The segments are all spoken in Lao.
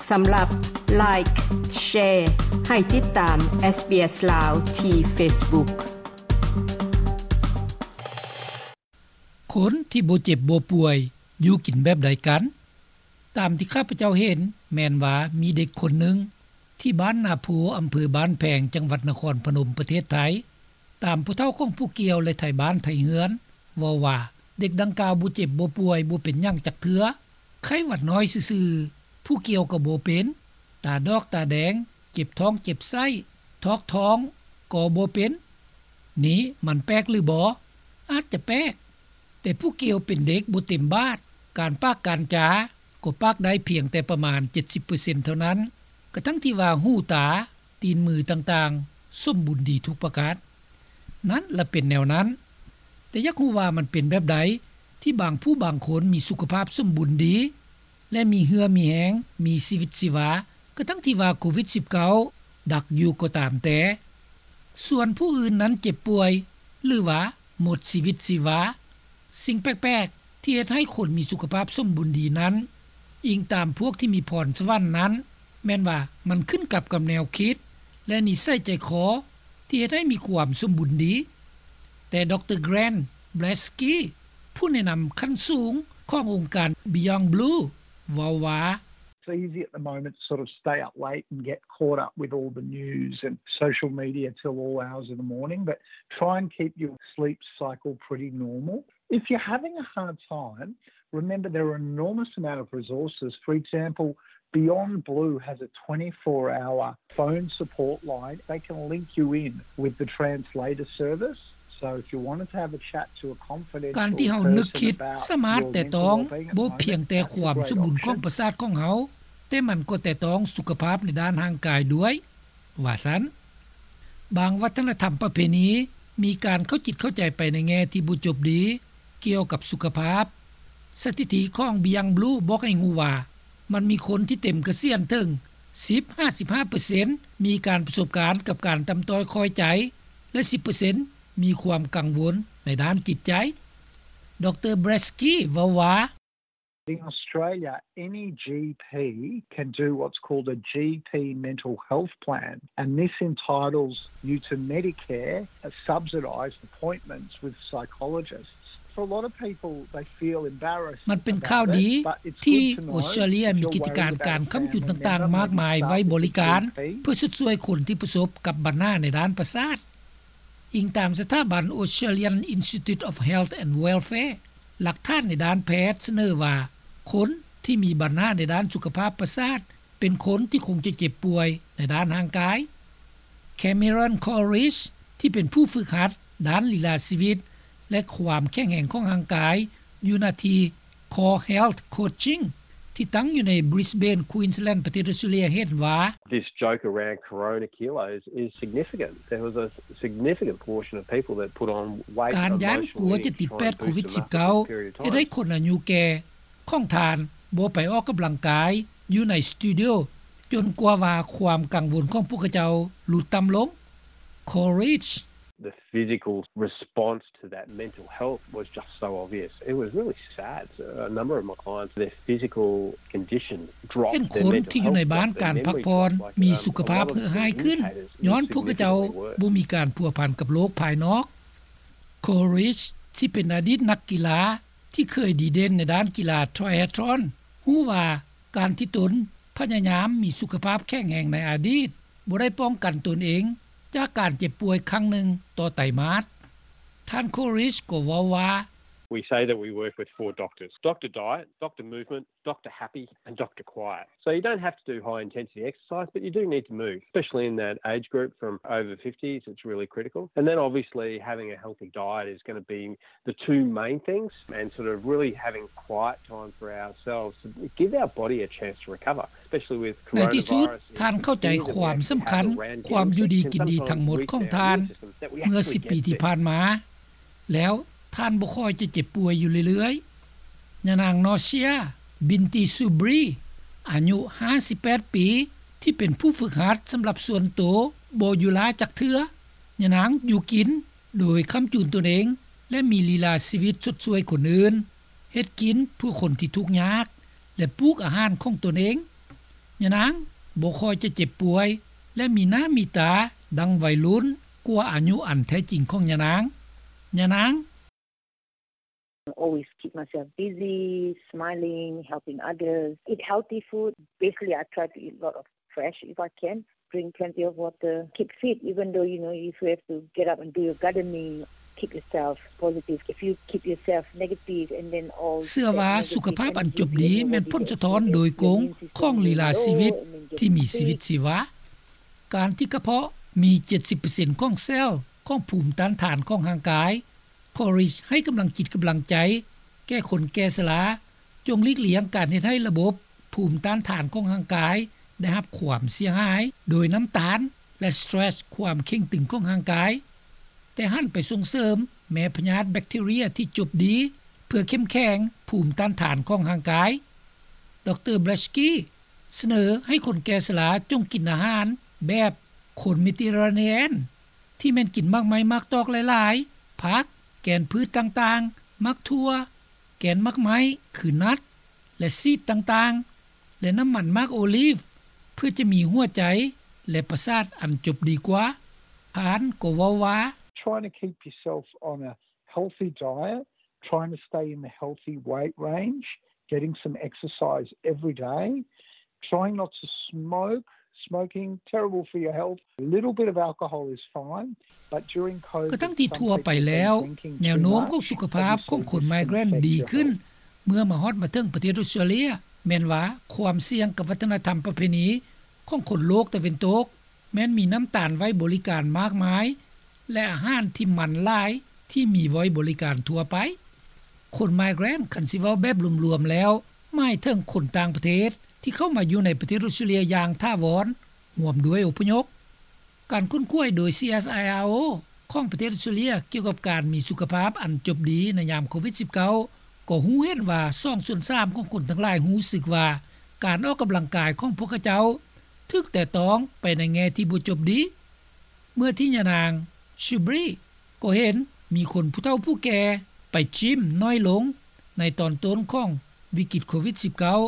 ສຳລັບ Like, Share ໃຫ້ຕິດຕາມ SBS ລາວ ທີ່ Facebook. ຄົນທີ່ບໍ່ເຈັບບໍ່ປ່ວຍ ຢູ່ກິນແບບໃດກັນ? ຕາມທີ່ຂ້າພະເຈົ້າເຫັນ ແມ່ນວ່າມີເດັກຄົນໜຶ່ງ ທີ່ບ້ານນາໂພ ອຳເພີບ້ານແພງ ຈັງຫວັດນະຄອນພະນົມ ປະເທດໄທ. ຕາມຜູ້ເຖົ້າຂອງຜູ້ກ່ຽວ ແລະ ໄທບ້ານໄທເຮືອນ ເວົ້າວ່າ ເດັກດັ່ງກ່າວບໍ່ເຈັບບໍ່ປ່ວຍ ບໍ່ເປັນຫຍັງຈັກເທື່ອ, ໄຂ້ຫວັດນ້ອຍຊື່ໆ, ຜູ້ກ່ຽວກໍບໍ່ເປັນ, ຕາດອກຕາແດງ, ເຈັບທ້ອງເຈັບໄສ້, ຖອກທ້ອງກໍບໍ່ເປັນ. ນີ້ມັນແປກຫຼືບໍ່? ອາດຈະແປກ, ແຕ່ຜູ້ກ່ຽວເປັນເດັກບໍ່ເຕັມບາດ, ການປາກການຈາກໍປາກໄດ້ພຽງແຕ່ປະມານເຈັດສິບເປີເຊັນເທົ່ານັ້ນ, ກະທັ່ງທີ່ວ່າຫູຕາ, ຕີນມືຕ່າງໆ ສົມບູນດີທຸກປະການ. ນັ້ນລະເປັນແນວນັ້ນ. ແຕ່ຢາກຮູ້ວ່າມັນເປັນແບບໃດ ທີ່ບາງຜູ້ບາງຄົນມີສຸຂະພາບສົມບູນດີ ແລະ ມີເຫື່ອມີແຮງ, ມີຊີວິດຊີວາ, ກະທັ່ງທີ່ວ່າໂຄວິດສິບເກົ້າດັກຢູ່ກໍຕາມແຕ່. ສ່ວນຜູ້ອື່ນນັ້ນເຈັບປ່ວຍ ຫຼືວ່າໝົດຊີວິດຊີວາ. ສິ່ງແປກໆ ທີ່ເຮັດໃຫ້ຄົນມີສຸຂະພາບສົມບູນດີນັ້ນ, ອີງຕາມພວກທີ່ມີພອນສະຫວັນນັ້ນ, ແມ່ນວ່າມັນຂຶ້ນກັບກັບແນວຄິດ ແລະ ນິໄສໃຈຄໍ ທີ່ເຮັດໃຫ້ມີຄວາມສົມບູນດີ. ແຕ່ ດຣ. Grant Blasky ຜູ້ແນະນຳຂັ້ນສູງຂອງອົງການ Beyond Blue ເວົ້າວ່າ, It's easy at the moment to sort of stay up late and get caught up with all the news and social media till all hours of the morning, but try and keep your sleep cycle pretty normal. If you're having a hard time, remember there are an enormous amount of resources. For example, Beyond Blue has a twenty-four hour phone support line. They can link you in with the translator service. So if you wanted to have a chat to a confidential person about your mental wellbeing at the moment, that's a great option. ການທີ່ເຮົານຶກຄິດສາມາດແຕະຕ້ອງບໍ່ພຽງແຕ່ຄວາມສົມບູນຂອງປະສາດຂອງເຮົາ, ແຕ່ມັນກໍແຕະຕ້ອງສຸຂະພາບໃນດ້ານຮ່າງກາຍດ້ວຍ. ວ່າຊັ້ນ. ບາງວັດທະນະທຳປະເພນີ ມີການເຂົ້າຈິດເຂົ້າໃຈໄປໃນແງ່ທີ່ບໍ່ຈົບດີ ກ່ຽວກັບສຸຂະພາບ. ສະຖິຕິຂອງ Beyond Blue ບອກໃຫ້ຮູ້ວ່າ ມັນມີຄົນທີ່ເຕັມກະສຽນເຖິງສິບຫາສິບຫ້າເປີເຊັນ ມີການປະສົບການກັບການຕ່ຳຕ້ອຍຄ່ອຍໃຈ ແລະ ສິບເປີເຊັນ ມີຄວາມກັງວົນໃນດ້ານຈິດໃຈ. ດຣ. Blasky ເວົ້າວ່າ, In Australia, any GP can do what's called a GP mental health plan, and this entitles you to Medicare, uh, subsidised appointments with psychologists. For a lot of people, they feel embarrassed about it, but it's good to know if you're worried about a family member, maybe talk to the GP. ມັນເປັນຂ່າວດີທີ່ທີ່ອົດສະຕຣາເລຍມີກິດຈະການການຄ້ຳຈຸນຕ່າງໆມາກມາໄວ້ບໍລິການ ເພື່ອຊົດຊ່ວຍຄົນທີ່ປະສົບກັບບັນຫາໃນດ້ານປະສາດ. ອີງຕາມສະຖາບັນ Australian Institute of Health and Welfare, ຫຼັກຖານໃນດ້ານແພດສະເໜີວ່າ ຄົນທີ່ມີບັນຫາໃນດ້ານສຸຂະພາບປະສາດ ເປັນຄົນທີ່ຄົງຈະເຈັບປ່ວຍໃນດ້ານຮ່າງກາຍ. Cameron Corrish ທີ່ເປັນຜູ້ຝຶກຫັດດ້ານລີລາຊີວິດ ແລະ ຄວາມແຂງແຮງຂອງຮ່າງກາຍ ຢູ່ນະທີ່ Core Health Coaching ທີ່ຕັ້ງຢູ່ໃນ Brisbane Queensland ປະເທດອອສເຕຣເລຍ ເຫັນວ່າ, This joke around Corona kilos is significant. There was a significant portion of people that put on weight emotionally to try and boost the muscle for a period of time. ການຢ້ານກົວຈະຕິດແປດໂຄວິດສິບເກົ້າ ເຮັດໃຫ້ຄົນອາຍຸແກ່ຂອງທ່ານບໍ່ໄປອອກກຳລັງກາຍຢູ່ໃນສະຕູດິໂອ ຈົນກວ່າວ່າຄວາມກັງວົນຂອງພວກເຂົາເຈົ້າຫຼຸດຕ່ຳລົງ. Corrish. The physical response to that mental health was just so obvious. It was really sad. A number of my clients, their physical condition dropped, their mental health dropped, their memory dropped. ເຫັນຄົນທີ່ຢູ່ໃນບ້ານການພັກຜ່ອນມີສຸຂະພາບເຮີ້ຮ້າຍຂຶ້ນ ຍ້ອນພວກເຂົາເຈົ້າບໍ່ມີການພົວພັນກັບໂລກພາຍນອກ. Corrish ທີ່ເປັນອະດີດນັກກິລາທີ່ເຄີຍດີເດັ່ນໃນດ້ານກິລາ Triathlon ຮູ້ວ່າການທີ່ຕົນພະຍາຍາມມີສຸຂະພາບແຂງແຮງໃນອະດີດ ບໍ່ໄດ້ປ້ອງກັນຕົນເອງຈາກການເຈັບປ່ວຍຄັ້ງໜຶ່ງຕໍ່ໄຕມາດ. ທ່ານ Corrish ກໍເວົ້າວ່າ, We say that we work with four doctors: Doctor Diet, Doctor Movement, Doctor Happy and Doctor Quiet. So you don't have to do high intensity exercise, but you do need to move, especially in that age group from over fifties, it's really critical. And then obviously having a healthy diet is gonna be the two main things, and sort of really having quiet time for ourselves to give our body a chance to recover, especially with coronavirus. ໃນທີ່ສຸດ, ທ່ານເຂົ້າໃຈຄວາມສຳຄັນຄວາມຢູ່ດີກິນດີທັງໝົດຂອງທ່ານເມື່ອສິບປີທີ່ຜ່ານມາ, ແລ້ວທ່ານບໍ່ຄ່ອຍຈະເຈັບປ່ວຍຢູ່ເລື້ອຍໆ. ຍານາງ Nausia Binti Subri ອາຍຸຫ້າສິບແປດປີ ທີ່ເປັນຜູ້ຝຶກຫັດສຳລັບສ່ວນໂຕ ບໍ່ຢູ່ລ້າຈັກເທື່ອ. ຍານາງຢູ່ກິນ ໂດຍຄ້ຳຈູນຕົນເອງ ແລະ ມີລີລາຊີວິດຊົດຊ່ວຍຄົນອື່ນ, ເຮັດກິນເພື່ອຄົນທີ່ທຸກຍາກ ແລະ ປູກອາຫານຂອງຕົນເອງ. ຍານາງບໍ່ຄ່ອຍຈະເຈັບປ່ວຍ ແລະ ມີໜ້າມີຕາດັ່ງໄວລຸ້ນກວ່າອາຍຸອັນແທ້ຈິງຂອງຍານາງ. ຍານາງ Always keep myself busy, smiling, helping others, eat healthy food. Basically, I try to eat a lot of fresh if I can. Drink plenty of water. Keep fit, even though, you know, if you have to get up and do your gardening, keep yourself positive. If you keep yourself negative and then all ເຊື່ອວ່າສຸຂະພາບອັນຈົບດີແມ່ນຜົນສະທ້ອນໂດຍກົງຂອງລີລາຊີວິດທີ່ມີຊີວິດຊີວາ. ການທີ່ກະເພາະມີເຈັດສິບເປີເຊັນຂອງເຊວຂອງພູມຕ້ານທານຂອງຮ່າງກາຍ Courage ໃຫ້ກຳລັງຈິດກຳລັງໃຈແກ່ຄົນແກ່ຊະລາ. ຈົ່ງຫຼີກລ່ຽງການເຮັດໃຫ້ລະບົບພູມຕ້ານທານຂອງຮ່າງກາຍໄດ້ຮັບຄວາມເສຍຫາຍໂດຍນ້ຳຕານ ແລະ stress ຄວາມເຄັ່ງຕຶງຂອງຮ່າງກາຍ, ແຕ່ຫັນໄປສົ່ງເສີມແມ່ພະຍາດແບັກທີເຣຍທີ່ຈົບດີ ເພື່ອເຂັ້ມແຂງພູມຕ້ານທານຂອງຮ່າງກາຍ. ດຣ Blasky ສະເໜີໃຫ້ຄົນແກ່ຊະລາຈົ່ງກິນອາຫານແບບຄົນເມດີເຕຣາເນຍນ ທີ່ແມ່ນກິນໝາກໄມ້ໝາກຕອກຫຼາຍໆ, ຜັກ, ແກ່ນພືດຕ່າງໆ, ໝາກຖົ່ວ, ແກ່ນໝາກໄມ້ ຄື nut ແລະ seed ຕ່າງໆ ແລະ ນ້ຳມັນໝາກໂອລີຟ ເພື່ອຈະມີຫົວໃຈ ແລະ ປະສາດອັນຈົບດີກວ່າ. ທ່ານກໍເວົ້າວ່າ Trying to keep yourself on a healthy diet, trying to stay in the healthy weight range, getting some exercise every day, trying not to smoke, smoking, terrible for your health. A little bit of alcohol is fine, but during COVID, ກະທັງທີ່ທົ່ວໄປແລ້ວ ແນວໂນ້ມຂອງສຸຂະພາບຂອງຄົນໄມເກຣນດີຂຶ້ນ ເມື່ອມາຮອດມາເຖິງປະເທດອົດສະຕຣາເລຍ ແມ່ນວ່າຄວາມສ່ຽງກັບວັດທະນະທຳປະເພນີຂອງຄົນໂລກຕາເວັນຕົກ ແມ່ນມີນ້ຳຕານໄວ້ບໍລິການມາກມາຍ ແລະ ອາຫານທີ່ມັນຫຼາຍທີ່ມີໄວ້ບໍລິການທົ່ວໄປ. ຄົນໄມເກຣນ ຄັນຊິເວົ້າແບບລວມໆແລ້ວ ໝາຍເຖິງຄົນຕ່າງປະເທດທີ່ເຂົ້າມາຢູ່ໃນປະເທດອົດສະຕຣາເລຍຢ່າງຖາວອນ ຮ່ວມດ້ວຍອົບພະຍົບ. ການຄົ້ນຄວ້າໂດຍ CSIRO ຂອງປະເທດອົດສະຕຣາເລຍກ່ຽວກັບການມີສຸຂະພາບອັນຈົບດີໃນຍາມໂຄວິດສິບເກົ້າ ກໍຮູ້ເຫັນວ່າສອງສ່ວນສາມຂອງຄົນທັງຫຼາຍຮູ້ສຶກວ່າ ການອອກກຳລັງກາຍຂອງພວກເຂົາເຈົ້າຖືກແຕະຕ້ອງໄປໃນແງ່ທີ່ບໍ່ຈົບດີ. ເມື່ອທີ່ຍານາງ Shubree ກໍເຫັນມີຄົນຜູ້ເຖົ້າຜູ້ແກ່ໄປຈິມໜ້ອຍລົງໃນຕອນຕົ້ນຂອງວິກິດໂຄວິດສິບເກົ້າ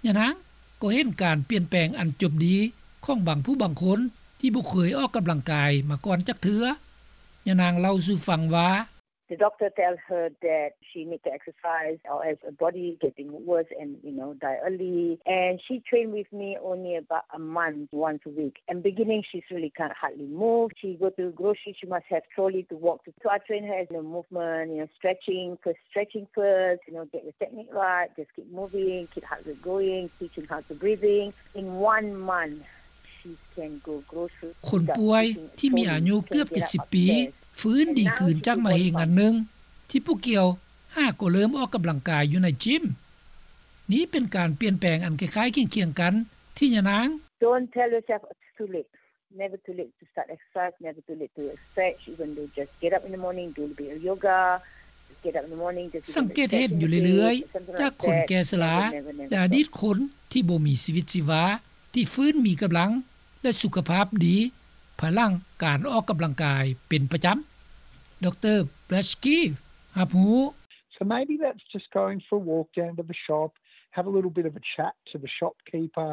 ຍານາງກໍເຫັນການປ່ຽນແປງອັນຈົບດີຂອງບາງຜູ້ບາງຄົນທີ່ບໍ່ເຄີຍອອກກຳລັງກາຍມາກ່ອນຈັກເທື່ອ. ຍານາງເລົ່າສູ່ຟັງວ່າ The doctor tell her that she need to exercise or else her body getting worse and, you know, die early. And she train with me only about a month, once a week. And beginning, she's really can't hardly move. She go to grocery, she must have trolley to walk to. So I train her as, you know, movement, you know, stretching, first stretching first, you know, get your technique right, just keep moving, keep heart rate going, teaching how to breathing. In one month, she can go grocery. ຄົນປ່ວຍທີ່ມີອາຍຸເກືອບເຈັດສິບປີ ຟື້ນດີຄືນຈາກມະເຮັງອັນໜຶ່ງ ທີ່ຜູ້ກ່ຽວຫາກໍເລີ່ມອອກກຳລັງກາຍຢູ່ໃນຈິມ. ນີ້ເປັນການປ່ຽນແປງອັນຄ້າຍໆຄຽງໆກັນທີ່ຍານາງ Don't tell yourself it's too late. Never too late to start exercise, never too late to stretch, even though just get up in the morning, do a little bit of yoga, get up in the morning, just ສັງເກດເຫັນຢູ່ເລື້ອຍໆ ຈາກຄົນແກ່ຊະລາ ແລະ ອະດີດຄົນທີ່ບໍ່ມີຊີວິດຊີວາ ທີ່ຟື້ນມີກຳລັງ ແລະ ສຸຂະພາບດີ ພາຍຫຼັງການອອກກຳລັງກາຍເປັນປະຈຳ. ດຣ Blasky ຮັບຮູ້. So maybe that's just going for a walk down to the shop, have a little bit of a chat to the shopkeeper,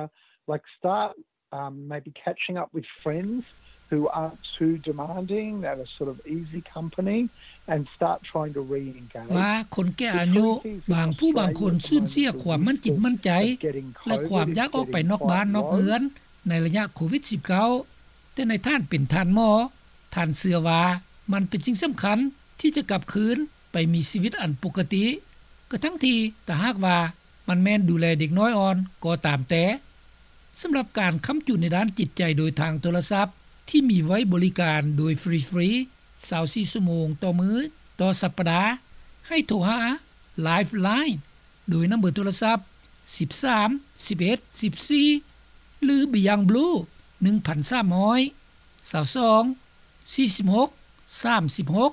like start um, maybe catching up with friends who aren't too demanding, that are sort of easy company, and start trying to re-engage. ວ່າຄົນແກ່ອາຍຸ ບາງຜູ້ບາງຄົນສູນເສຍຄວາມໝັ້ນຈິດໝັ້ນໃຈ ແລະ ຄວາມຢາກອອກໄປນອກບ້ານນອກເຮືອນໃນໄລຍະໂຄວິດສິບເກົ້າ ແຕ່ໃນທ່ານເປັນທ່ານໝໍ ທ່ານເຊື່ອວ່າມັນເປັນສິ່ງສຳຄັນທີ່ຈະກັບຄືນໄປມີຊີວິດອັນປົກກະຕິ ກະທັງທີ່ຖ້າຫາກວ່າ ມັນແມ່ນດູແລເດັກນ້ອຍອ່ອນກໍຕາມແຕ່. ສຳລັບການຄ້ຳຈຸນໃນດ້ານຈິດໃຈໂດຍທາງໂທລະສັບ ທີ່ມີໄວ້ບໍລິການໂດຍຟຣີໆ ຊາວສີ່ຊົ່ວໂມງຕໍ່ມື້ ຕໍ່ສັບປະດາ ໃຫ້ໂທຫາ Lifeline ໂດຍນຳເບີໂທລະສັບ ສິບສາມ ສິບເອັດ ສິບສີ່ ຫຼື Beyond Blue ໜຶ່ງພັນສາມຮ້ອຍ ຊາວສອງ ສີ່ສິບຫົກ ສາມສິບຫົກ.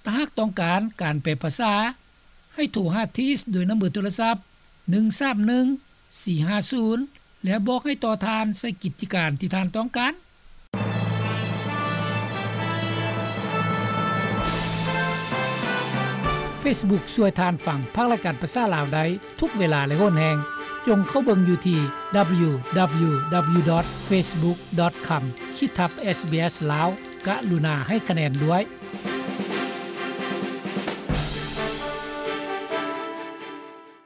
ຖ້າຫາກຕ້ອງການການແປພາສາ ໃຫ້ໂທຫາ Tees ໂດຍນຳເບີໂທລະສັບ ໜຶ່ງສາມໜຶ່ງ ສີ່ຫ້າສູນ ແລ້ວບອກໃຫ້ຕໍ່ທ່ານໃສ່ກິດຈະການທີ່ທ່ານຕ້ອງການ. Facebook ຊ່ວຍທ່ານຟັງພາກລາຍການພາສາລາວໄດ້ທຸກເວລາ ແລະ ຫົນແຫ່ງ. ຈົ່ງເຂົ້າເບິ່ງຢູ່ທີ່ www.facebook.com/sbslao ກະລຸນາໃຫ້ຄະແນນດ້ວຍ.